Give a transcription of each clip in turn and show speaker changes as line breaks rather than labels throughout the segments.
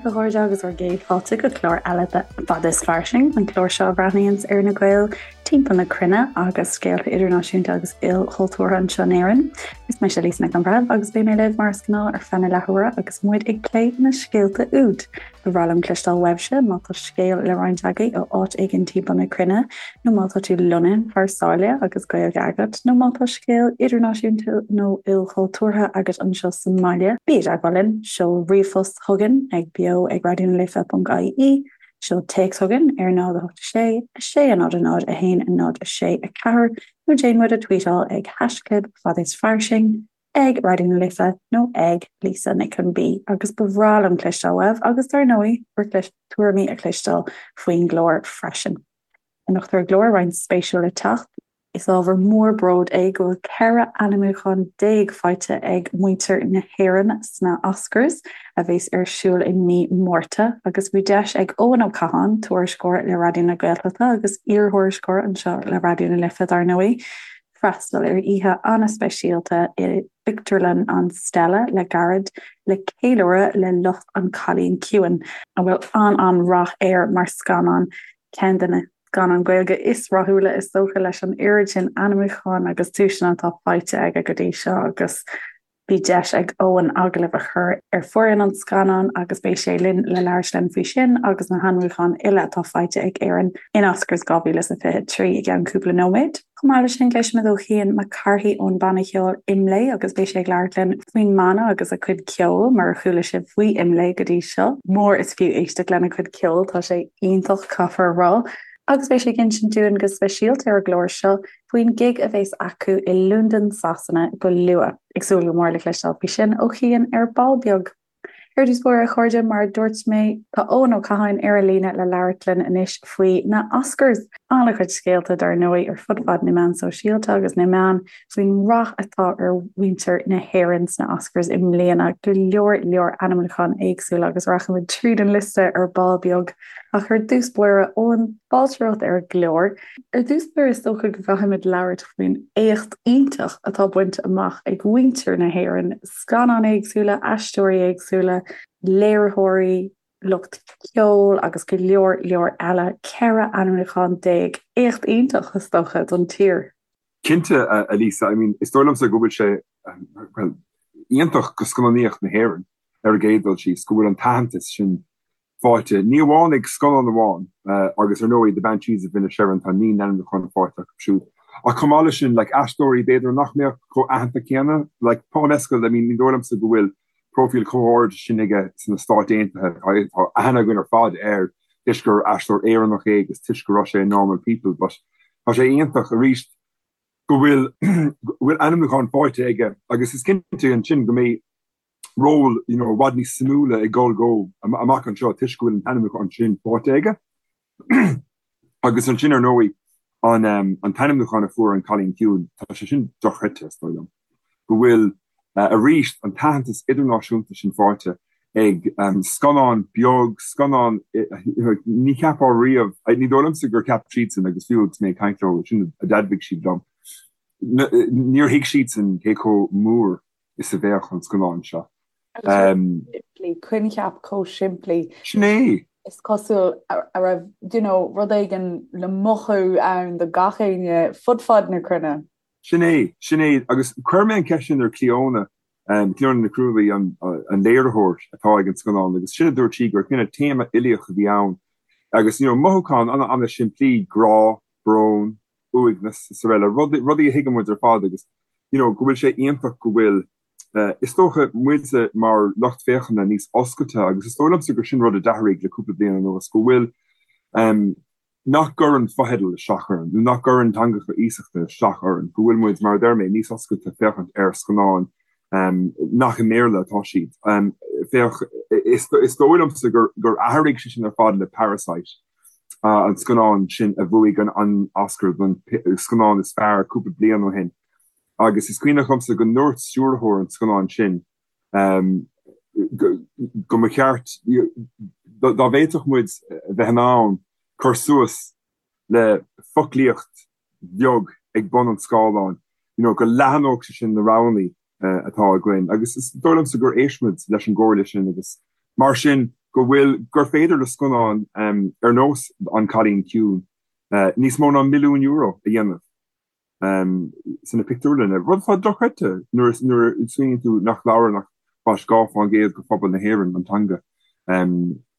libh, a chairde, agus bhur gcéad fáilte go clár eile de Fada is Fairsing, an clár seo a bhreathnaíonns ar na Gaeil timpeall na cruinne agus scéalta idirnáisiúnta agus ilchultúrtha anseo in Éirinn. Is mise Lisa Nic an Bhreithimh agus beidh mé libh mar is gnáth ar feadh na leathuaire agus muid ag plé na scéalta úd. Ba bhreá liom cloisteáil uaibhse má tá scéal le roinnt agaibh ó áit éigin timpeall na cruinne, nó má tá tú lonnaithe thar sáile agus Gaeilge agat, nó má tá scéal idirnáisiúnta nó ilchultúrtha agat anseo sa mbaile, bí i dteagmháil linn, seol ríomhphost chugainn ag beo ag raidionalife.ie, seol téacs chugainn ar 0 8 6 6 0 0 1 0 6 4, nó déan muid a tweetáil ag haischlib fad is fairsing. ag Raidió na Life nó ag Lisa Nic an B agus ba bhreá liom cloisteáil uaibh agus dar ndóigh bhur tuairimí a chloisteáil faoin gclár freisin. Anocht ar an gclár roinnt spéisiúil le teacht. Is ábhar mór bróid é go bhfuil 14 ainmniúchán faighte ag muintir na hÉireann sna Oscars a bheas ar siúl i mí Márta agus bhí deis ag Eoin Ó Catháin, tuairisceoir le Raidió na Gaeltachta agus iarthuairisceoir anseo le Raidió na Life dar ndóigh, freastal ar oíche an-speisialta i bpictiúrlann an Stella le gairid le ceiliúradh le lucht An Cailín Ciúin, a bhfuil an-an-rath air mar scannán, ceann de na scannáin Ghaeilge is rathúla is dócha leis an oiread sin ainmniúchán agus duaiseanna atá faighte aige go dtí seo agus Bhí deis ag Eoin agallamh a chur ar foireann an scannáin agus beidh sé linn le labhairt linn faoi sin agus na hainmniúcháin uile atá faighte ag Éirinn in Oscars 2023 i gceann cúpla nóiméad. Chomh maith leis sin, cloisfimid ó Chian Mac Cárthaigh ón banna ceoil IMLÉ agus beidh sé ag labhairt linn faoin mbanna agus a cuid ceoil, murar chuala sibh faoi IMLÉ go dtí seo, mór is fiú éisteacht lena cuid ceoil, tá sé iontach, caithfear a rá. Agus beidh sé ag insint dúinn go speisialta ar an gclár seo faoin gig a bheas acu i Londain, Sasana go luath. Ag súil go mór le cloisteáil faoi sin ó Chian ar ball beag. Ar dtús báire, a chairde, mar a dúirt mé, tá Eoin Ó Catháin ar an líne le labhairt linn anois faoi na Oscars. An-chuid scéalta, dar ndóigh, ar fud fad na meán sóisialta agus na meán faoin rath atá ar mhuintir na hÉireann sna Oscars i mbliana. Go leor leor ainmniúcháin éagsúla agus rachaimid tríd an liosta ar ball beag. Ach ar dtús báire, Eoin, fáilte romhat ar an gclár. Ar dtús báire, is dócha go gcaithfimid labhairt faoin éacht iontach atá bainte amach ag muintir na hÉireann, scannáin éagsúla, aisteoirí éagsúla, léiritheoirí, lucht ceoil agus go leor leor eile. 14 ainmniúchán. Éacht iontach, is dócha, don tír.
Cinnte, a Lisa. I mean, is dóigh liomsa go bhfuil sé, well, iontach go scannánaíocht na hÉireann ar an gcéad dul síos, go bhfuil an t-aitheantas sin faighte, ní amháin ag scannán amháin, agus ar ndóigh The Banshees of Inisherin, tá 9 n-ainmniúchán faighte acu siúd, ach chomh maith leis sin, like, aisteoirí b'fhéidir nach mbeadh chomh aitheanta céanna, like, Paul Mescal, I mean, ní dóigh liomsa go bhfuil próifíl chomh hard sin aige sna Stáit Aontaithe, tá aithne againn ar fad air toisc gur aisteoir Éireannach é agus toisc go raibh sé i Normal People, but tá sé iontach arís go bhfuil go bhfuil ainmniúchán faighte aige agus is cinnte ansin go mbeidh ról you know i bhfad níos suimiúla ag dul dó amach anseo toisc go bhfuil an t-ainmniúchán sin faighte aige. Agus ansin ar ndóigh an an t-ainmniúchán a fuair An Cailín Ciúin, tá sé sin dochreidte is dóigh liom, go bhfuil arís an t-aitheantas idirnáisiúnta sin faighte ag scannán beag, scannán ní cheapfá riamh, ní dóigh liomsa gur cheap siadsan agus fiú agus mé ag caint leo, sin a d'admhaigh siad liom, níor thuig siadsan cé chomh mór is a bheadh an scannán seo.
Simplí, coincheap chomh simplí.
Sin é!
Is cosúil a raibh, you know, rud éigin le mothú ann do gach éinne fud fad na cruinne.
Sin é, sin é. Agus chuir mé an cheist sin ar Clíona, Clíona Nic Ruairí, an léiritheoir atá ag an scannán, agus sin a dúirt sí, gur cineál téama uilíoch a bhí ann agus, you know, mothúchán an-an-simplí, grá, brón, uaigneas is araile, rudaí a thuigeann muid ar fad agus you know go bhfuil sé iontach go bhfuil is dócha muide mar lucht féachana níos oscailte agus is dóigh liomsa gur sin rud a d'athraigh le cúpla bliain anuas go bhfuil nach gcuireann fotheidil isteach orainn nó nach gcuireann teangacha iasachta isteach orainn, go bhfuil muid mar a deir mé níos oscailte féachaint ar scannáin nach i mBéarla atá siad. Féach, is dóigh liomsa gur athraigh sé sin ar fad le Parasite. an scannán sin a bhuaigh an Oscar don scannán is fearr cúpla bliain ó shin agus is cuimhneach liomsa go ndúirt stiúrthóir an scannáin sin go mba cheart dá bhféadfadh muid a bheith in ann cur suas le foclaíocht bheag ag bun an scáileáin, you know, go leathnódh sé sin na roghanna atá againn agus is dóigh liomsa gur éist muid leis an gcomhairle sin agus mar sin. go bhfuil, gur féidir le scannán ar nós An Cailín Ciúin níos mó ná €1,000,000 a dhéanamh sna pictiúrlanna, rud atá dochreidte nuair a smaoiníonn tú nach labhrann ach fás 2% de phobal na hÉireann an teanga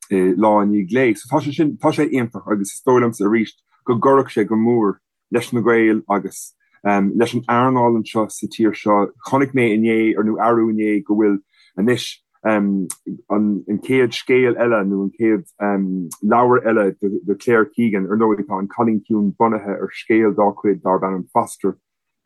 lá i ndiaidh lae. So tá sé sin, tá sé iontach agus is dóigh liomsa arís go gcuirfeadh sé go mór leis na Gaeil agus leis an earnáil anseo sa tír seo. Chonaic mé inné, nó arú inné, go bhfuil anois an chéad scéal eile nó an chéad leabhar eile de Claire Keegan, ar ndóigh tá An Cailín Ciúin bunaithe ar scéal dá cuid darb ainm Foster,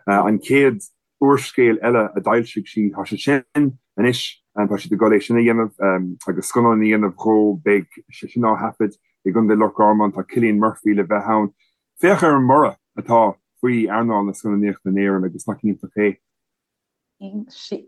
an chéad úrscéal eile a d'fhoilsigh sí, tá sé sin anois, tá siad ag dul é sin a dhéanamh agus scannán a dhéanamh dhó, beidh sé sin á thaifead i gContae Loch Garman, tá Cillian Murphy le bheith ann. Féach ar an mborradh atá faoi earnáil na scannánaíochta in Éirinn agus nach iontach é?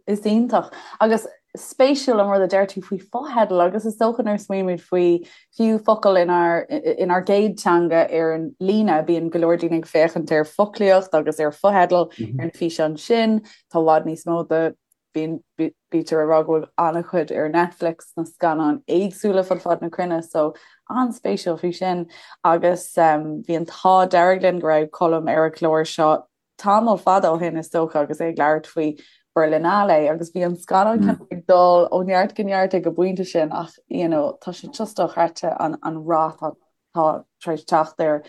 Is iontach agus spéisiúil an rud a deir tú faoi fotheidil agus is dócha nuair a smaoinímid faoi fiú focail inár inár gcéad teanga ar an líne, bíonn go leor daoine ag féachaint ar foclaíocht agus ar fotheidil ar na físeáin sin, tá i bhfad níos mó de bíonn bítear ag rá go bhfuil an-chuid ar Netflix na scannáin éagsúla fud fad na cruinne so an-spéisiúil faoi sin agus bhí an t-ádh dearg linn go raibh Colm ar an chlár seo tamall fada ó shin is dócha agus é ag labhairt faoi Berlinale agus bhí an scannán kind of ag dul ó neart go neart ag an bpointe sin ach you know tá sé just dochreidte an an rath atá tar éis teacht air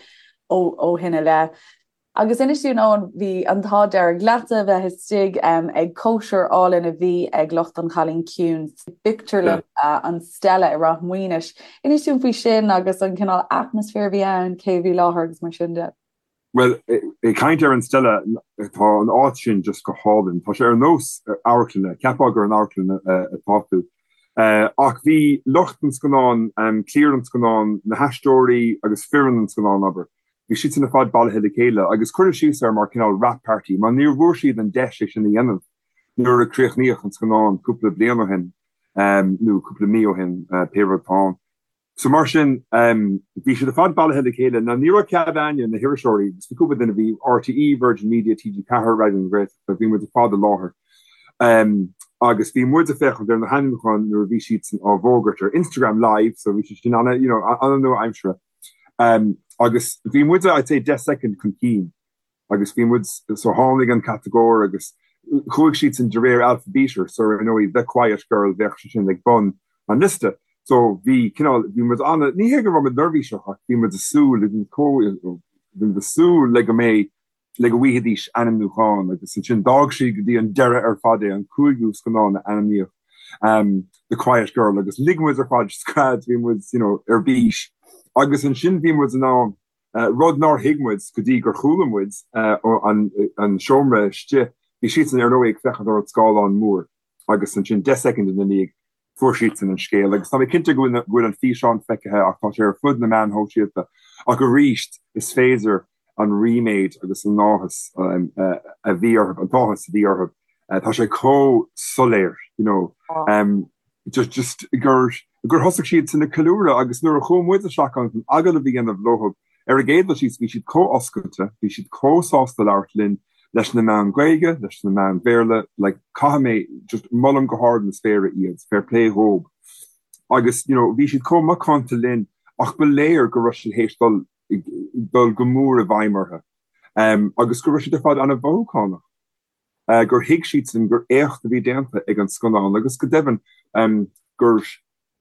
ó ó shin i leith. Agus inis dúinn Eoin, bhí an t-ádh dearg leatsa a bheith istigh ag cóisir álainn a bhí ag lucht an Chailín Ciúin sa bpictiúrlann an Stella i Ráth Maoinis. Inis dúinn faoi sin agus an cineál atmaisféar a bhí ann, cé a bhí i láthair agus mar sin de.
Bhuel, ag caint ar an Stella, tá an áit sin just go hálainn. Tá sé ar nós amharclainne, cheapfá gur in amharclann atá tú. Ach bhí lucht an scannáin, cliar an scannáin, na haisteoirí agus foireann an scannáin, abair, bhí siadsan ar fad bailithe le chéile agus cuireadh síos air mar cineál wrap party mar níor bhfuair siad an deis é sin a dhéanamh nuair a críochnaíodh an scannán cúpla bliain ó shin, nó cúpla mí ó shin, pé rud atá ann. So mar sin, bhí siad ar fad bailithe le chéile. Now ní raibh cead againne, na hiriseoirí, agus bhí cúpla duine, bhí RTÉ, Virgin Media, TG4, Raidió na Gaeltachta, bhí muid ar fad i láthair. Agus bhí muid ag féachaint ar na hainmniúcháin nuair a bhí siadsan á bhfógairt ar Instagram Live, so bhí sé sin ana, you know, ana-nua-aimseartha. Agus bhí muid, I'd say, 10 soicind chun cinn. agus bhí muid, so tháinig an catagóir agus chuaigh siadsan de réir alphaibíte, so ar ndóigh The Quiet Girl bheadh sé sin ag bun an liosta. So bhí cineál, bhí muid ana, ní hé go raibh muid neirbhíseach ach bhí muid ag súil, bhí muid chomh, bhí muid ag súil le go mbeidh, le go bhfaighidís ainmniúchán agus ansin d'fhág siad go dtí an deireadh ar fad é, an cúigiú scannán a ainmníodh, The Quiet Girl agus lig muid ar fad scread, bhí muid, you know, ar bís agus ansin bhí muid in ann rud nár thuig muid go dtí gur chuala muid ón seomra istigh. Bhí siadsan ar ndóigh ag féachaint ar an scáileán mór agus ansin 10 soicind ina ndiaidh fuair siadsan an scéal agus tá mé cinnte go bhfuil an físeán feicthe ach tá sé ar fud na meán shóisialta ach arís is féidir an ríméad agus an áthas a bhí orthu, an t-áthas a bhí orthu, tá sé chomh soiléir, you know. Just just gur gur thosaigh siadsan ag ceiliúradh agus nuair a chuaigh muid isteach ann chun agallamh a dhéanamh leo ar an gcéad dul síos bhí siad chomh oscailte, bhí siad chomh sásta labhairt linn, leis na meáin Ghaeilge, leis na meáin Bhéarla, like caithfidh mé just molaim go hard na spéire iad, fair play dhób. Agus you know bhí siad chomh macánta linn ach ba léir go raibh siad théis dul dul go mór i bhfeidhm orthu agus go raibh siad ar fad an-mhothúchánach. gur thuig siadsan gur éacht a bhí déanta ag an scannán agus go deimhin gur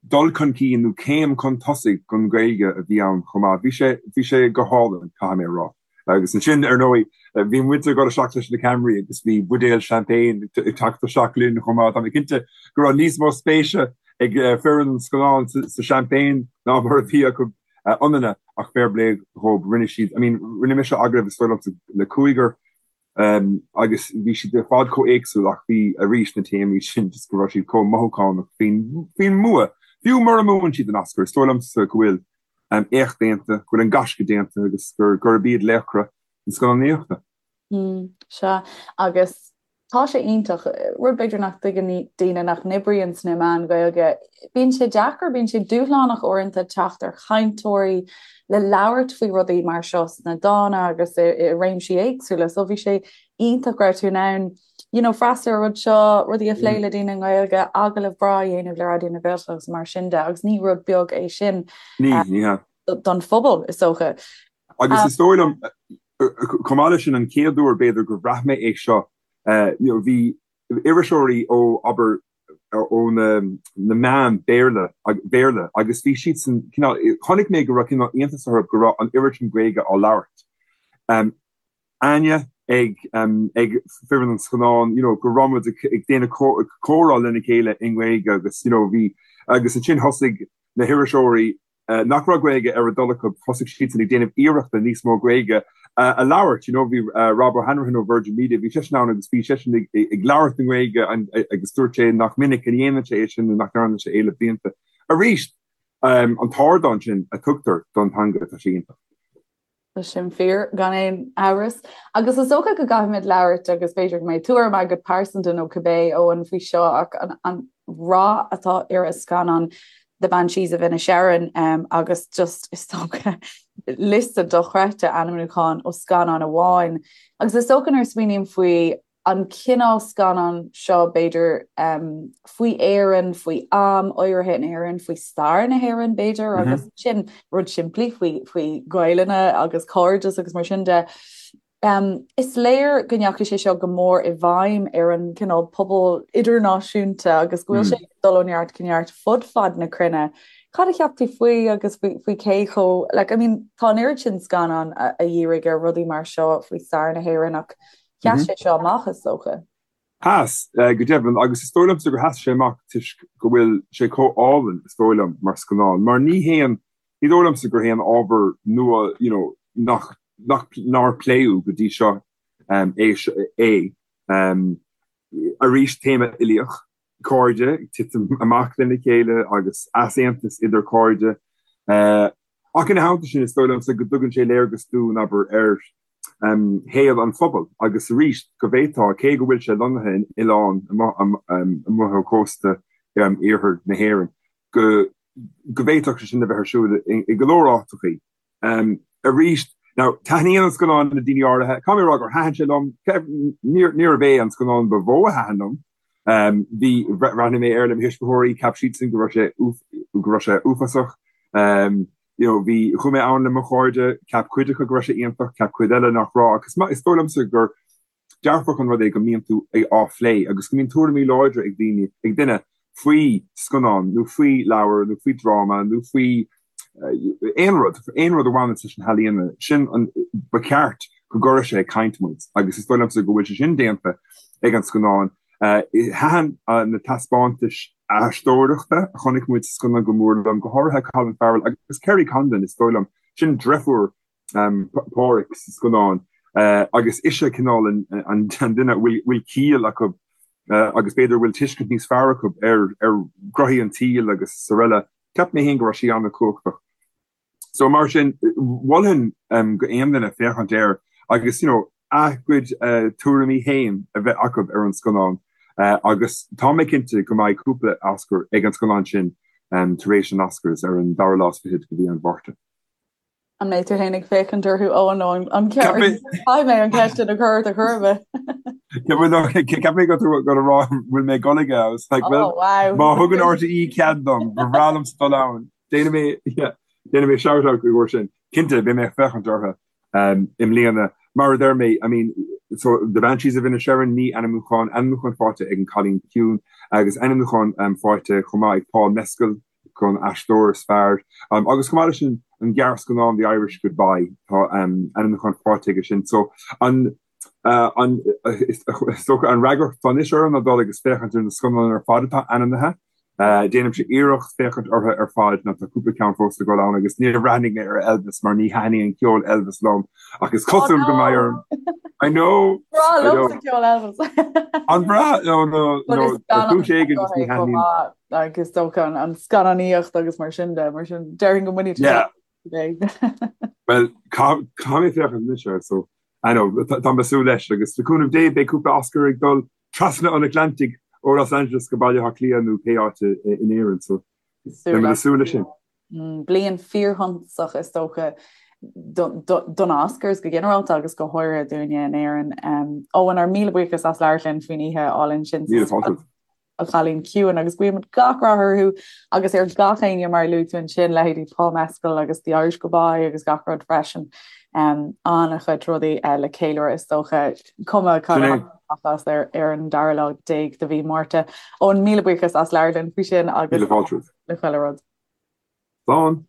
dul chun cinn nó céim chun tosaigh don Ghaeilge a bhí ann chomh maith. Bhí sé, bhí sé go hálainn, caithfidh mé a rá. Agus ansin, ar ndóigh, bhí muid ag dul isteach leis na ceamaraí agus bhí buidéal champagne ag teacht isteach linn chomh maith. Tá mé cinnte go raibh níos mó spéise ag foireann an scannáin sa champagne ná mar a bhí acu ionainne ach fair play dhóibh, rinne siad, I mean, rinne mise agallamh is dóigh liomsa le cúigear, Agus bhí siad ar fad chomh éagsúil ach bhí arís na téamaí sin just go raibh siad chomh mothúchánach faoin faoin mbua. Fiú mura mbuann siad an Oscar, is dóigh liomsa go bhfuil éacht déanta, go bhfuil an gaisce déanta agus gur gurb iad laochra na scannánaíochta.
Sea, agus tá sé iontach, rud b'fhéidir nach dtuigeann daoine nach n-oibríonn sna meáin Ghaeilge, bíonn sé deacair, bíonn sé dúshlánach uaireanta teacht ar chainteoirí le labhairt faoi rudaí mar seo sna dána agus i réimsí éagsúla. So bhí sé iontach go raibh tú in ann. you know, freastal ar an rud seo, rudaí a phlé le daoine i nGaeilge, agallamh breá a dhéanamh le Raidió na Gaeltachta agus mar sin de, agus ní rud beag é sin
Ní, ní hea.
don phobal, is dócha.
Agus is dóigh liom, chomh maith leis sin, an chéad uair, b'fhéidir, gur bhraith mé é seo, you know, bhí iriseoirí ó, abair, ó na meáin Béarla, Bhéarla agus bhí siadsan cineál, chonaic mé go raibh cineál iontas orthu go raibh an oiread sin Gaeilge á labhairt. Áine ag ag foireann an scannáin, you know, go raibh muid ag déanamh comhrá lena chéile i nGaeilge agus, you know, bhí, agus ansin thosaigh na hiriseoirí nach raibh Gaeilge ar a dtoil acu, thosaigh siadsan ag déanamh iarrachta níos mó Gaeilge a labhairt, you know, bhí Rob O'Hanrahan ó Virgin Media, bhí seisean ann agus bhí seisean ag ag labhairt i nGaeilge agus dúirt sé nach minic a dhéanann sé é sin nó nach ndearna sé é le blianta. Arís, an t-ardán sin a tugtar don teanga, tá sé iontach.
Tá sin fíor, gan aon amhras. Agus is dócha go gcaithfimid labhairt, agus b'fhéidir go mbeidh tuairim agat pearsanta nó cibé, Eoin, faoi seo, ach an rath atá ar an scannán The Banshees of Inisherin agus just, is dócha, liosta dochreidte ainmniúchán ó scannán amháin. Agus is dócha nuair a smaoiním faoi an cineál scannán seo, b'fhéidir, faoi Éirinn, faoi am áirithe in Éirinn, faoi stair na hÉireann, b'fhéidir, agus sin rud simplí faoi faoi Ghaelainne agus cairdeas agus mar sin de. Is léir go ndeachaigh sé seo go mór i bhfeidhm ar an cineál pobal idirnáisiúnta agus go bhfuil sé ag dul ó neart go neart fud fad na cruinne. Cad a cheap tú faoi agus faoi faoi cé chomh, like, I mean, tá an oiread sin scannán a a dhírigh ar rudaí mar seo faoi stair na hÉireann ach Sheas sé seo amach, is dócha.
Sheas, go deimhin, agus is dóigh liomsa gur sheas sé amach toisc go bhfuil sé chomh álainn, is dóigh liom, mar scannán. Mar ní haon, ní dóigh liomsa gur haon ábhar nua, you know, nach, nach, nár pléadh go dtí seo é, é. Arís, téama uilíoch. cairde ag titim amach lena chéile agus easaontas idir cairde. Ach ina theannta sin, is dóigh liomsa go dtugann sé léargas dúinn, abair, ar shaol an phobail agus arís go bhféadfá, cé go bhfuil sé lonnaithe in oileán amuigh ó chósta iarthar na hÉireann, go go bhféadfadh sé sin a bheith ar siúl i go leor áiteachaí. Arís, now, taitníonn an scannán le daoine áirithe. Caithfidh mé a rá gur thaitin sé liom. Níorbh é an scannán ba mhó a thaitin liom. Bhí, bhreathnaigh mé air le mo thuismitheoirí, cheap siadsan go raibh sé, go raibh sé uafásach. You know, bhí, chuaigh mé ann le mo chairde, cheap cuid acu go raibh sé iontach, cheap cuid eile nach raibh. Agus is dóigh liomsa gur dearfach an rud é go mbíonn tú á phlé agus go mbíonn tuairimí láidre ag daoine, ag duine faoi scannán nó faoi leabhar nó faoi dráma nó faoi aon rud, aon rud a bhaineann leis na healaíona, sin an, ba cheart go gcuirfeadh sé ag caint muid agus is dóigh liomsa go bhfuil sé sin déanta ag an scannán. Thaitin na taispeántais aisteoireachta a chonaic muid sa scannán go mór liom, go háirithe Colin Farrell agus Kerry Condon, is dóigh liom, sin deirfiúr Pádraic sa scannán agus ise cineál an duine a bhfuil ciall acu agus b'fhéidir a bhfuil tuiscint níos fearr acu ar ghnoithí an tsaoil agus araile. Cheap mé féin go raibh sí an-chumhachtach. So mar sin, mholfainn go aon duine féachaint air agus you know a gcuid tuairimí féin a bheith acu ar an scannán agus tá mé cinnte go mbeidh cúpla Oscar ag an scannán sin tar éis an Oscars ar an dara lá is fichead de mhí an Mhárta.
An mbeidh tú féin ag féachaint orthu ó nó an Caithfidh mé an cheist sin a chur ort a chur
mé. Ceap mé go go rá bhfuil mé ag dul aige agus like well Oh wow. má thugann RTÉ cead dom ba bhreá liomsa dul ann. Déanfaidh mé yeah, déanfaidh mé shout out go sin. Cinnte beidh mé ag féachaint orthu um, i mbliana. Mar a deir mé, I mean, so The Banshees of Inisherin ní ainmniúchán, ainmniúchán faighte ag an Cailín Ciúin agus ainmniúchán um, faighte chomh maith ag Paul Mescal don aisteoir is fearr. Agus chomh maith leis sin, an gearrscannán The Irish Goodbye, tá ainmniúchán faighte aige sin. So an an is dócha an fhreagracht atá anois orm ná dul agus féachaint ar na scannáin ar fad atá ainmnithe. Déanaimse iarracht féachaint orthu ar fad nó tá cúpla ceann fós le dul ann agus níor bhreathnaigh mé ar Elvis mar ní thaitníonn ceol Elvis liom ach is cosúil go mbeidh orm. I know!
Breá liomsa ceol Elvis.
An breá? No, no, no, ar chúis éigin just ní thaitníonn.
Agus is dócha an scannánaíocht agus mar sin de, mar sin déarfainn go mbainfidh
tú Well, caithfidh mé féachaint anois air, so I know, tá mé ag súil leis agus le cúnamh Dé beidh cúpla Oscar ag dul trasna an Atlantaigh ó Los Angeles go Baile Átha Cliath nó pé áit in Éirinn, so beidh mé ag súil leis sin.
Bliain fíorshuntasach is dócha. don Oscars go ginearálta agus go háirithe dúinne in Éirinn. Eoin, ár míle buíochas as labhairt linn faoin oíche álainn sin.
Míle fáilte.
An Cailín Ciúin agus guímid gach rath orthu agus ar gach éinne mar a luaigh tú ansin, leithéidí Paul Mescal agus The Irish Goodbye agus gach rud freisin. An-chuid rudaí le ceiliúradh is dócha, cuma cad a as ar ar an dara lá déag de mhí Márta. Eoin, míle buíochas as labhairt linn faoi sin agus
Míle fáilte.
le chuile rud.
Slán.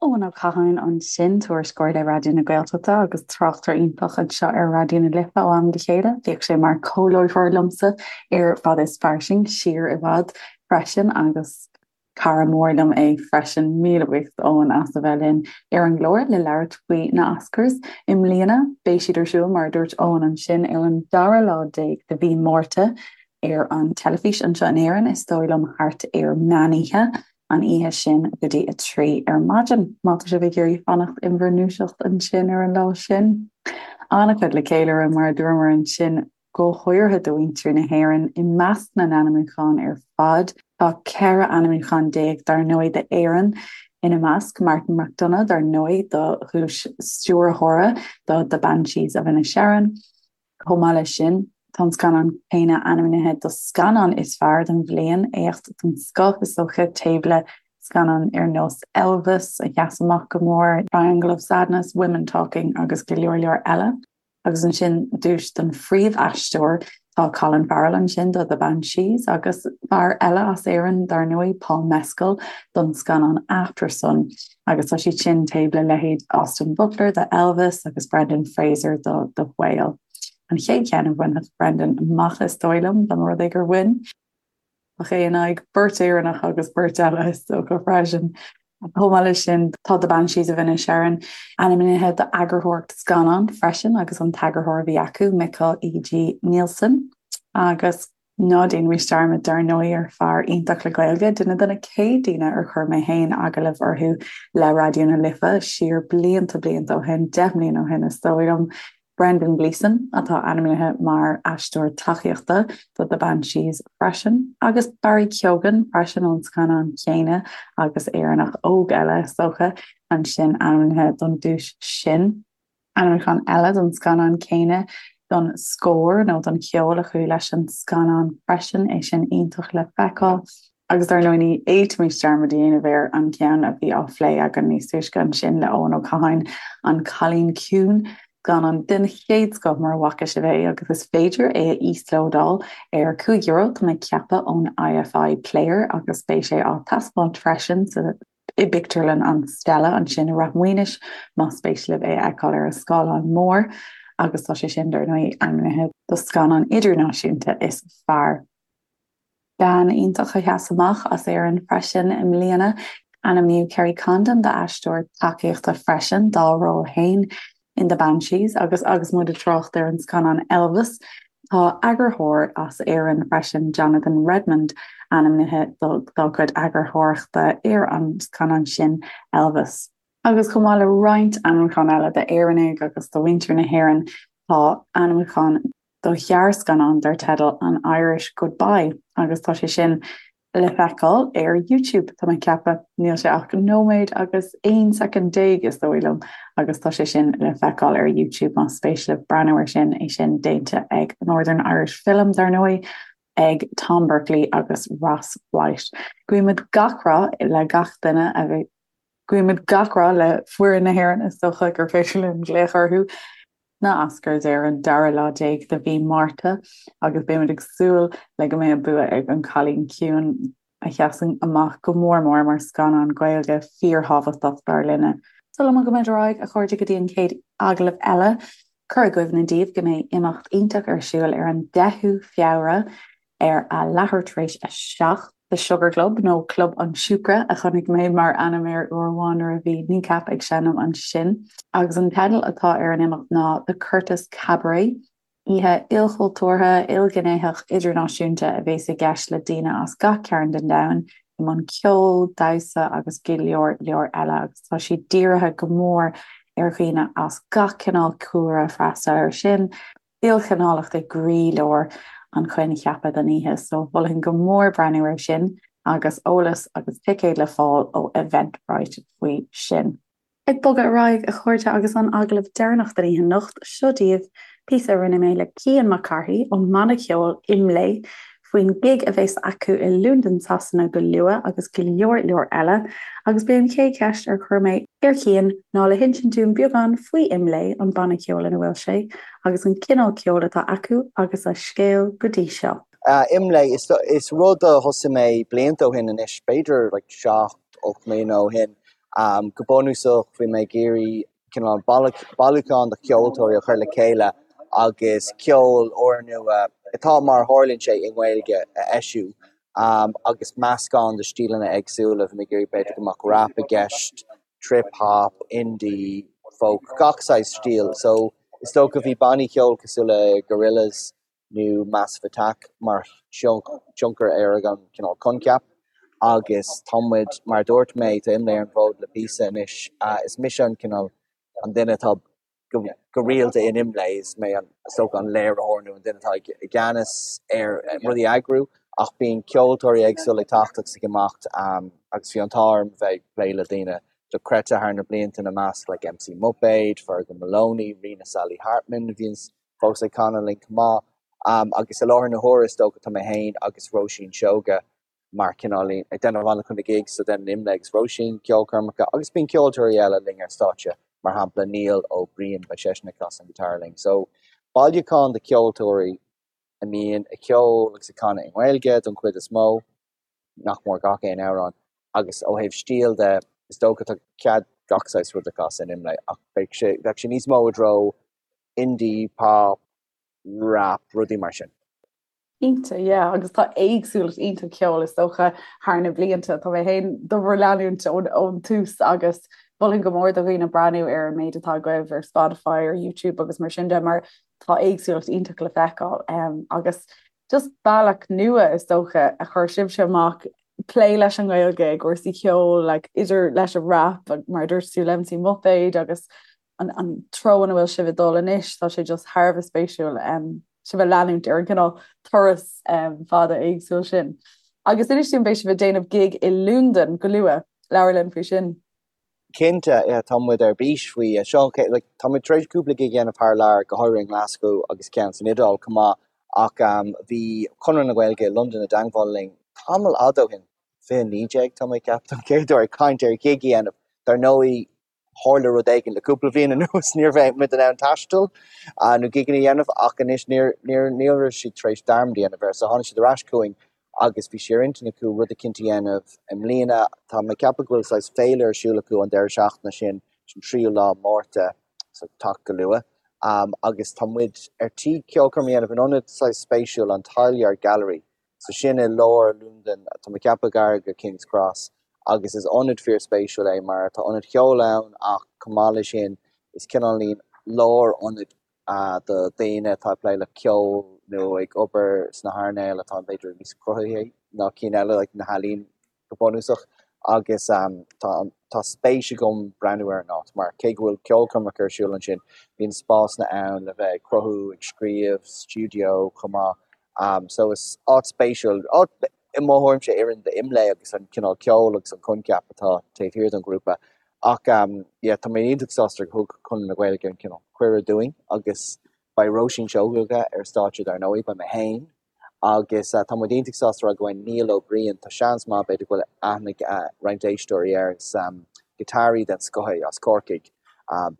Eoin Ó Catháin ansin, tuairisceoir le Raidió na Gaeltachta agus tráchtaire iontach anseo ar Raidió na Life ó am go chéile. Bhíodh sé mar comhláithreoir liomsa ar Fada is Fairsing siar i bhfad freisin agus cara mór liom é freisin. Míle buíochas Eoin as a bheith linn ar an gclár le labhairt faoi na Oscars i mbliana. Beidh siad ar siúl, mar a dúirt Eoin ansin, ar an dara lá déag de mhí Márta ar an teilifís anseo in Éirinn, is dóigh liom thart ar meánoíche. an oíche sin go dtí a 3 ar maidin, má tá sibh ag iarraidh fanacht in bhur ndúiseacht ansin ar an lá sin. An-chuid le ceiliúradh, mar a dúramar ansin, go háirithe do mhuintir na hÉireann. I measc na n-ainmniúchán ar fad, tá 14 ainmniúchán dar ndóigh d'Éirinn ina measc, Martin McDonagh dar ndóigh do dhuais stiúrthóra do The Banshees of Inisherin, Chomh maith leis sin, tá an scannán céanna ainmnithe do Scannán is Fearr don Bhliain, éacht den scoth is dócha, taobh le scannáin ar nós Elvis, a sheas amach go mór, Triangle of Sadness, Women Talking agus go leor leor eile. Agus ansin duais don phríomhaisteoir, tá Colin Farrell ansin do The Banshees agus fear eile as Éirinn, dar ndóigh, Paul Mescal don scannán Aftersun. Agus tá siad sin taobh le leithéid Austin Butler do Elvis agus Brendan Fraser do The Whale. An chéad cheann a bhainfeadh Brendan amach is dóigh liom, dá mba rud é gur bhain. Ach é in aghaidh beirt Éireannach agus beirt eile is dócha freisin. Chomh maith leis sin, tá The Banshees of Inisherin ainmnithe d'eagarthóireacht scannán freisin agus an t-eagarthóir a bhí acu, Mikkel E.G. Nielsen. Agus Ná déanaimis dearmad, dar ndóigh, ar fear iontach le Gaeilge, duine de na chéad daoine ar chuir mé féin agallamh orthu le Raidió na Life siar blianta blianta ó shin, 10 mbliana ó shin is dóigh liom, Brendan Gleeson, atá ainmnithe mar aisteoir tacaíochta do The Banshees freisin, agus Barry Keoghan freisin ón scannán céanna agus Éireannach óg eile, is dócha, ansin ainmnithe don duais sin. Ainmniúchán eile don scannán céanna don scór nó don cheol a chuaigh leis an scannán freisin, é sin iontach le feiceáil. Agus dar ndóigh ní fhéadfaimis dearmad a dhéanamh ar an gceann a bhí á phlé againn níos túisce ansin le Eoin Ó Catháin, An Cailín Ciúin, scannán den chéad scoth mura bhfaca sibh é agus is féidir é a íoslódáil ar €5, tá mé ag ceapadh, ón IFI Player agus beidh sé á taispeáint freisin sa i bpictiúrlann an Stella ansin i Rath Maoinis, más spéis libh é a fheiceáil ar an scáileán mór, agus tá sé sin, dar ndóigh, ainmnithe do scannán idirnáisiúnta is fearr. Bean iontach a sheas amach as Éirinn freisin i mbliana. Ainmníodh Kerry Condon d'aisteoir tacaíochta freisin dá ról féin in The Banshees agus agus muid ag trácht ar an scannán Elvis, tá eagarthóir as Éirinn freisin, Jonathan Redmond, ainmnithe dá chuid eagarthóireachta ar an scannán sin, Elvis. Agus chomh maith le roinnt ainmniúchán eile d'Éireannaigh agus do mhuintir na hÉireann, tá ainmniúchán do ghearrscannán dar teideal An Irish Goodbye agus tá sé sin le feiceáil ar YouTube, tá mé ag ceapadh. Níl sé ach nóiméad agus 11 soicind is dóigh liom agus tá sé sin le feiceáil ar YouTube más spéis libh breathnú air sin, é sin déanta ag Northern Irish Film, dar ndóigh, ag Tom Berkeley agus Ross White. Guímid gach rath le gach duine a bhí Guímid gach rath le foireann na hÉireann, is dócha gur féidir linn glaoch orthu. na Oscars ar an dara lá déag de mhí Márta agus beimid ag súil le go mbeidh an bua ag An Cailín Ciúin, a sheasann amach go mór mór mar scannán Gaeilge fíorthábhachtach dar linne. Sula mbogaimid ar aghaidh, a chairde, go dtí an chéad agallamh eile, cur i gcuimhne daoibh go mbeidh imeacht iontach ar siúl ar an 10ú Feabhra ar a leathuair tar éis a 7, The Sugar Club, nó Club an tSiúcra a chonaic mé mar ainm air uair amháin nuair a bhí Kneecap ag seinm ansin. Agus an teideal atá ar an imeacht ná The Curtis Cabaret. Oíche ilchultúrtha, ilghnéitheach, idirnáisiúnta a bhéas i gceist le daoine as gach cearn den domhan i mbun ceoil, damhsa agus go leor leor eile agus tá sé dírithe go mór ar dhaoine as gach cineál cúlra freastal air sin. ilchineálacht i gcroílár an choincheapa don oíche, so mholfainn go mór breathnú air sin agus eolas agus ticéid le fáil ó Eventbrite faoi sin. Ag bogadh ar aghaidh, a chairde, agus an agallamh deireanach den oíche anocht, seo daoibh píosa a rinne mé le Cian Mac Cárthaigh ón mbanna ceoil IMLÉ faoin gig a bheas acu i Londain Sasana go luath agus go leor leor eile. Agus b'é an chéad cheist ar chuir mé ar Chian ná le hinsint dúinn beagán faoi IMLÉ, an banna ceoil ina bhfuil sé, agus an cineál ceoil atá acu agus a scéal go dtí seo.
IMLÉ, is rud a thosaigh mé blianta ó shin anois, b'fhéidir like 7, 8 mbliana ó shin. Go bunúsach bhí mé ag iarraidh cineál bailiúchán de cheoltóirí a chur le chéile agus ceol úrnua, atá mar a tharlaíonn sé i nGaeilge, a eisiú agus meascán de stíleanna éagsúla. Bhí mé ag iarraidh b'fhéidir go mbeadh rap i gceist, trip hop, indie, folk, gach saghas stíl. So is dócha bhí bannaí ceoil cosúil le Gorillaz, nó Massive Attack mar thionchar ar an cineál coincheap agus tá muid, mar a dúirt mé, tá IMLÉ ar an bhfód le píosa anois. Is mise an cineál an duine atá go rialta in IMLÉ, is mé an, is dócha, an léiritheoir nó an duine atá i gceannas ar rudaí a eagrú ach bíonn ceoltóirí éagsúla ag teacht agus ag imeacht agus bhí an t-ádh orm bheith ag plé le daoine dochreidte thar na blianta ina measc like MC Muipéad, Fergal Moloney, Ríona Sally Hartman a bhíonns fós ag canadh linn chomh maith. Agus i láthair na huaire is dócha tá mé féin agus Róisín Seoige mar cineál ag déanamh an-chuid na gigs so déanann IMLÉ agus Róisín ceolchoirmeacha agus bíonn ceoltóirí eile linn ar stáitse mar shampla Niall Ó Briain beidh seisean ag casadh an guitar linn. So bailiúchán de cheoltóirí a mbíonn ag ceol agus ag canadh i nGaeilge don chuid is mó, nach mór gach aon amhrán agus ó thaobh stíl de is dócha tá cead gach saghas rud a chasadh in IMLÉ ach beidh sé bheadh sé níos mó i dtreo indie, pop, rap, rudaí mar sin.
Cinnte, yeah, agus tá éagsúlacht iontach ceoil is dócha thar na blianta. Tá mé féin do bhur leanúint ón tús agus mholfainn go mór do dhaoine breathnú ar an méid atá agaibh ar Spotify, ar YouTube agus mar sin de mar tá éagsúlacht iontach le feiceáil um, agus just bealach nua is dócha a chuir sibhse amach plé leis an nGaeilge i gcúrsaí ceoil like, idir leis an rap mar dúirt tú le MC Muipéad agus an, an treo ina bhfuil sibh ag dul anois, tá sé just thar a bheith spéisiúil um, sibh a leanúint ar an gcineál turas um, fada éagsúil sin. Agus inis dúinn beidh sibh ag déanamh gig i Londain go luath, labhair linn faoi sin.
Cinnte, yeah, tá muid ar bís faoi. Seo, like, tá muid tar éis cúpla gig a dhéanamh thar lear, go háirithe i nGlasgow agus ceann san Iodáil chomh maith, ach um, bhí Conradh na Gaeilge i Londain i dteangmháil linn tamall fhada ó shin, 2019 tá mé ag ceapadh don chéad uair ag caint ar ghig a dhéanamh. Dar ndóigh, tharla rud éigin le cúpla bliain anuas, ní raibh muid in ann taisteal nó gigeanna a dhéanamh ach anois níor, níor, ní raibh siad tar éis dearmad a dhéanamh air so tháinig siad ar ais chugainn agus bhí sé ar intinn acu rud eicínt a dhéanamh i mbliana. Tá mé ag ceapadh go bhfuil saghas féile ar siúl acu an deireadh seachtaine sin, sin tríú lá Márta, so teacht go luath. Agus tá muid ar tí ceolchoirm a dhéanamh in ionad saghas spéisiúil, an Tileyard Gallery. So sin i lár Londain, tá mé ag ceapadh gar go King's Cross, agus is ionad fíorspéisiúil é mar tá ionad cheoil ann ach chomh maith leis sin is cineáilín lárionad do daoine atá ag plé le ceol nó ag obair sna hearnáil atá b'fhéidir níos cruthaithí ná cinn eile, like na healaín go bunúsach agus tá tá spéis agam breathnú ar an áit mar cé go bhfuil ceolchoirmeacha ar siúl ansin, bíonn spásanna ann le bheith ag cruthú, ag scríobh, stiúideo chomh maith. So is áit spéisiúil, áit i mo thuairimse a oireann d'IMLÉ agus an cineál ceoil agus an coincheap atá taobh thiar den ghrúpa. Ach yeah, tá mé iontach sásta gur thug Conradh na Gaeilge an cineál cuireadh dúinn agus beidh Róisín Seoighe ar stáitse dar ndóigh, beidh mé féin, Agus tá muid iontach sásta a rá go mbeidh Niall Ó Briain, tá seans maith b'fhéidir go bhfuil aithne ag roinnt éisteoirí air, is giotáraí den scoth é as Corcaigh.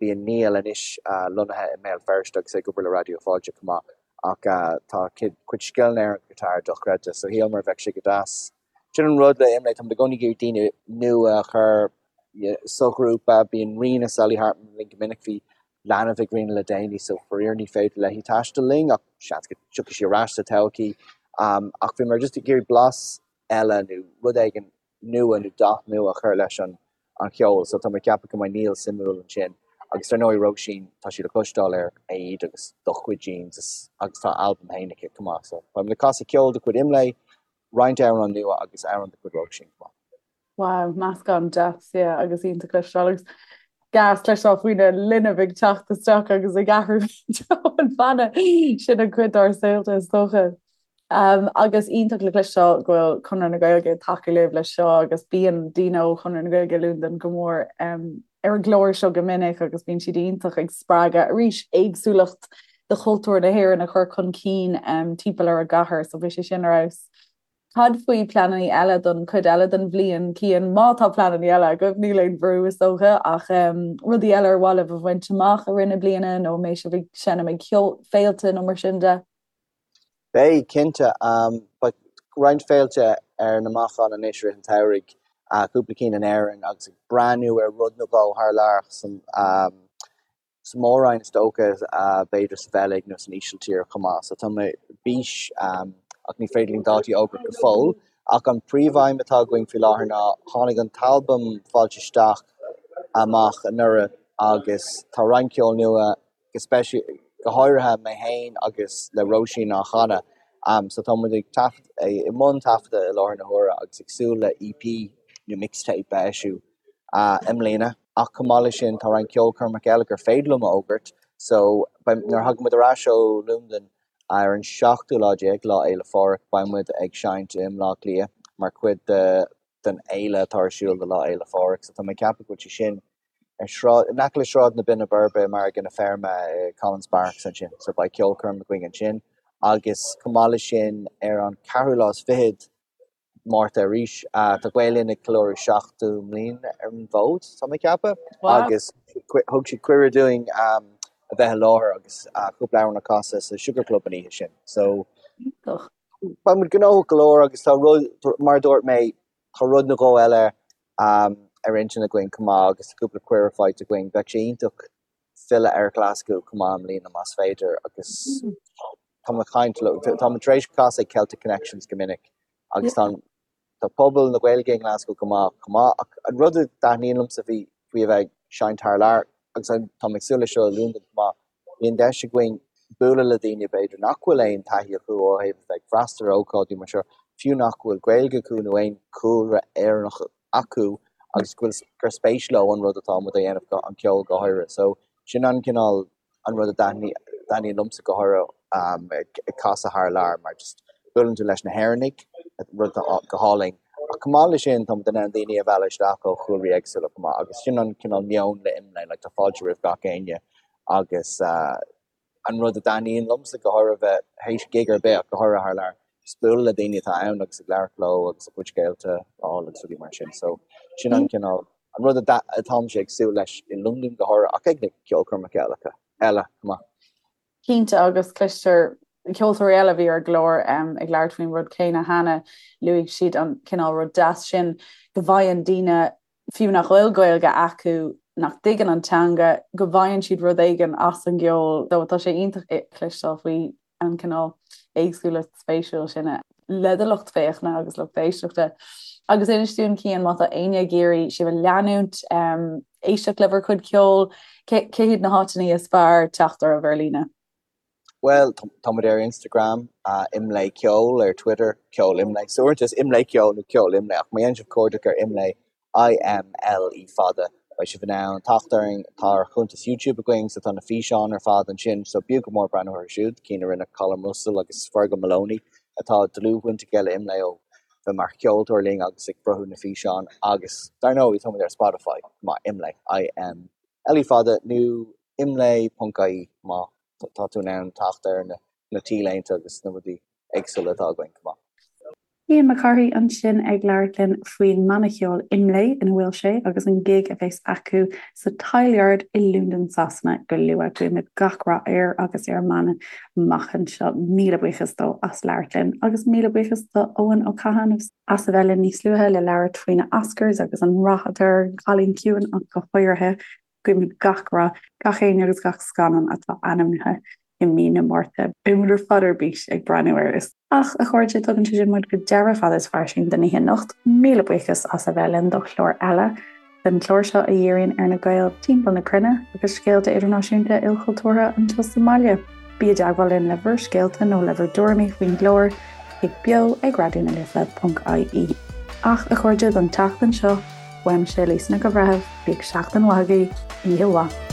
Bíonn Niall anois lonnaithe i mBéal Feirste agus é ag obair le Raidió Fáilte chomh maith ach tá a chuid scileanna ar an ghiotár dochreidte so shíleamar bheadh sé go deas. Sin an rud le IMLÉ, tá muid i gcónaí ag iarraidh daoine nua a chur sa ghrúpa, bíonn Ríona Sally Hartman linn go minic, bhí leanbh ag Ríona le déanaí so faraor ní féidir léi taisteal linn ach seans go dtiocfaidh sí ar ais sa todhchaí. Ach bhíomar just ag iarraidh blas eile nó rud éigin nua nó dath nua a chur leis an an cheol so tá mé ag ceapadh go mbeidh Niall suimiúil ansin. Agus dar ndóigh Róisín, tá sí le cloisteáil ar Éad agus Do Chuid Jeans agus tá a albam féin aici chomh maith so beidh muid ag casadh ceol de chuid IMLÉ, roinnt amhrán nua agus amhrán de chuid Róisín chomh maith.
Wow, meascán deas, yeah, agus iontach cloisteáil agus gas cloisteáil faoina linbh ag teacht isteach agus ag athrú an bhanna sin an cuid dár saolta is dócha. Um, agus iontach le cloisteáil go bhfuil Conradh na Gaeilge ag tacú libh leis seo agus bíonn daoine ó Chonradh na Gaeilge i Londain go mór um, ar an gclár seo go minic agus bíonn siad iontach ag spreagadh arís éagsúlacht de chultúr na hÉireann a chur chun cinn timpeall ar an gcathair, so bhí sé sin ar fheabhas. Cad faoi pleananna eile don chuid eile den bhliain, Cian? Má tá pleananna eile agaibh, níl aon bhrú is dócha, ach rudaí eile ar mhaith libh a bhaint amach i rith na bliana nó an mbeidh sibh ag seinm ag féilte nó mar sin de?
Beidh, cinnte. Beidh roinnt féilte ar na bacáin anois i rith an tsamhraidh, cúpla cinn in Éirinn agus ag breathnú ar rud nó dhó thar lear san sa Mhór-Roinn is dócha, b'fhéidir sa Bheilg nó san Ísiltír chomh maith. So tá mé ar bís ach ní féidir linn dátaí a fhógairt go fóill. Ach an príomhaidhm atá againn faoi láthair ná tháinig an t-albam Fáilte Isteach amach anuraidh agus tá roinnt ceoil nua go speisialta, go háirithe mé féin agus le Róisín á chanadh. So tá muid ag taifead, i mbun taifeadta i láthair na huaire agus ag súil le EP nó mixtape a eisiú i mbliana. Ach chomh maith leis sin, tá roinnt ceolchoirmeacha eile gur féidir liom a fhógairt. So, beidh, nuair a thagann muid ar ais ó Londain ar an seachtú lá déag, Lá Fhéile Phádraig, beidh muid ag seinnt i mBleá Cliath mar chuid de den fhéile atá ar siúl do Lá Fhéile Phádraig. So tá mé ag ceapadh go bhfuil sé sin ar sráid, in aice le Sráid na Binne Boirbe i Margadh na Feirme i Collins Barracks ansin. So beidh ceolchoirm againn ansin. Agus chomh maith leis sin, ar an ceathrú lá is fichead, Márta arís. Tá Gael Linn ag ceiliúradh 70 mbliain ar an bhfód, tá mé ag ceapadh, agus thug siad cuireadh dúinn a bheith i láthair agus cúpla amhrán a chasadh sa Sugar Club an oíche sin. So beidh muid gnóthach go leor agus tá rud, mar a dúirt mé, tá rud nó dhó eile ar intinn againn chomh maith agus tá cúpla cuireadh faighte againn. Bheadh sé iontach filleadh ar Ghlaschú chomh maith i mbliana más féidir agus tá mé ag caint leo, tá mé tar éis casadh ag Celtic Connections go minic agus tá tá pobal na Gaeilge i nGlaschú go maith chomh maith ach an rud a thaitníonn liomsa faoi faoi a bheith ag seinnt thar lear agus tá mé ag súil leis seo i Londain chomh maith, bíonn deis againn bualadh le daoine b'fhéidir nach bhfuil aon taithí acu ó thaobh a bheith ag freastal ar ócáidí mar seo, fiú nach bhfuil Gaeilge acu nó aon chúlra Éireannach acu agus go bhfuil gur spéis leo an rud atá muid a dhéanamh, an ceol go háirithe. So sin an cineál an rud a thaitníonn liomsa go háirithe ag casadh thar lear mar just buaileann tú leis na hÉireannaigh, rud atá go hálainn. Ach chomh maith leis sin tá muid in ann daoine a mhealladh isteach ó chúlraí éagsúla chomh maith agus sin an cineál meon le IMLÉ, like tá fáilte roimh gach éinne agus an rud a thaitníonn liomsa go háirithe bheith théis gig ar bith ach go háirithe thar lear, just bualadh le daoine atá ann agus ag labhairt leo agus a gcuid scéalta a fháil agus rudaí mar sin. So sin an cineál, an rud atáimse ag súil leis i Londain go háirithe ach ag na ceolchoirmeacha eile eile chomh maith.
Cinnte agus cloistear ceoltóirí eile a bhí ar an gclár ag labhairt faoin rud céanna cheana, luaigh siad an cineál rud deas sin go bhfaigheann daoine fiú nach bhfuil Gaeilge acu, nach dtuigeann an teanga, go bhfaigheann siad rud éigin as an gceol. So tá sé iontach cloisteáil faoi an cineál éagsúlacht spéisiúil sin le do lucht féachana agus lucht éisteachta. Agus inis dúinn, Cian, má tá éinne ag iarraidh sibh a leanúint, éisteacht le bhur gcuid ceoil, cé hiad na háiteanna is fearr teacht oraibh ar líne?
Bhuel, tá muid ar Instagram, Imlé Ceol, ar Twitter, Ceol Imlé. So uaireanta is Imlé Ceol nó Ceol Imlé, ach má dhéanann sibh cuardach ar Imlé, I-M-L-E fada, beidh sibh in ann teacht orainn. Tá ár chuntas YouTube againn, so tá na físeáin ar fad ansin, so b'fhiú go mór breathnú orthu siúd, cinn a rinne Colm Russell agus Fergal Moloney, atá dlúthbhaint aige le Imlé ó bheith mar cheoltóir linn agus ag cruthú na físeán agus, dar ndóigh, tá muid ar Spotify, chomh maith, Imlé, I-M-L-E fada, nó imlé.ie má tá tú in ann teacht ar na t-léinte agus na rudaí éagsúla atá againn chomh maith.
Cian Mac Cárthaigh ansin ag labhairt linn faoin mbanna ceoil Imlé ina bhfuil sé agus an gig a bheas acu sa Tileyard i Londain Sasana go luath. Guímid gach rath air agus ar an mbanna amach anseo. Míle buíochas dó as labhairt linn agus míle buíochas do Eoin Ó Catháin as a bheith linn níos luaithe le labhairt faoi na Oscars agus an rath atá ar An Cailín Ciúin ach go háirithe. Guímid gach rath, gach éinne agus gach scannán atá ainmnithe i mí na Márta. Beidh muid ar fad ar bís ag breathnú air. Ach, a chairde, tugann sé sin muid go deireadh Fada is Fairsing don oíche anocht. Míle buíochas as a bheith linn do chlár eile den chlár seo a dhíríonn ar na Gaeil timpeall na cruinne agus scéalta idirnáisiúnta ilchultúrtha anseo sa mbaile. Bí i dteagmháil linn le bhur scéalta nó le bhur dtuairimí faoin gclár ag beo ag raidió na life ponc ie. Ach, a chairde, don tseachtain seo, uaimse, Lisa Nic an Bhreithimh, bíodh seachtain mhaith agaibh, oíche mhaith.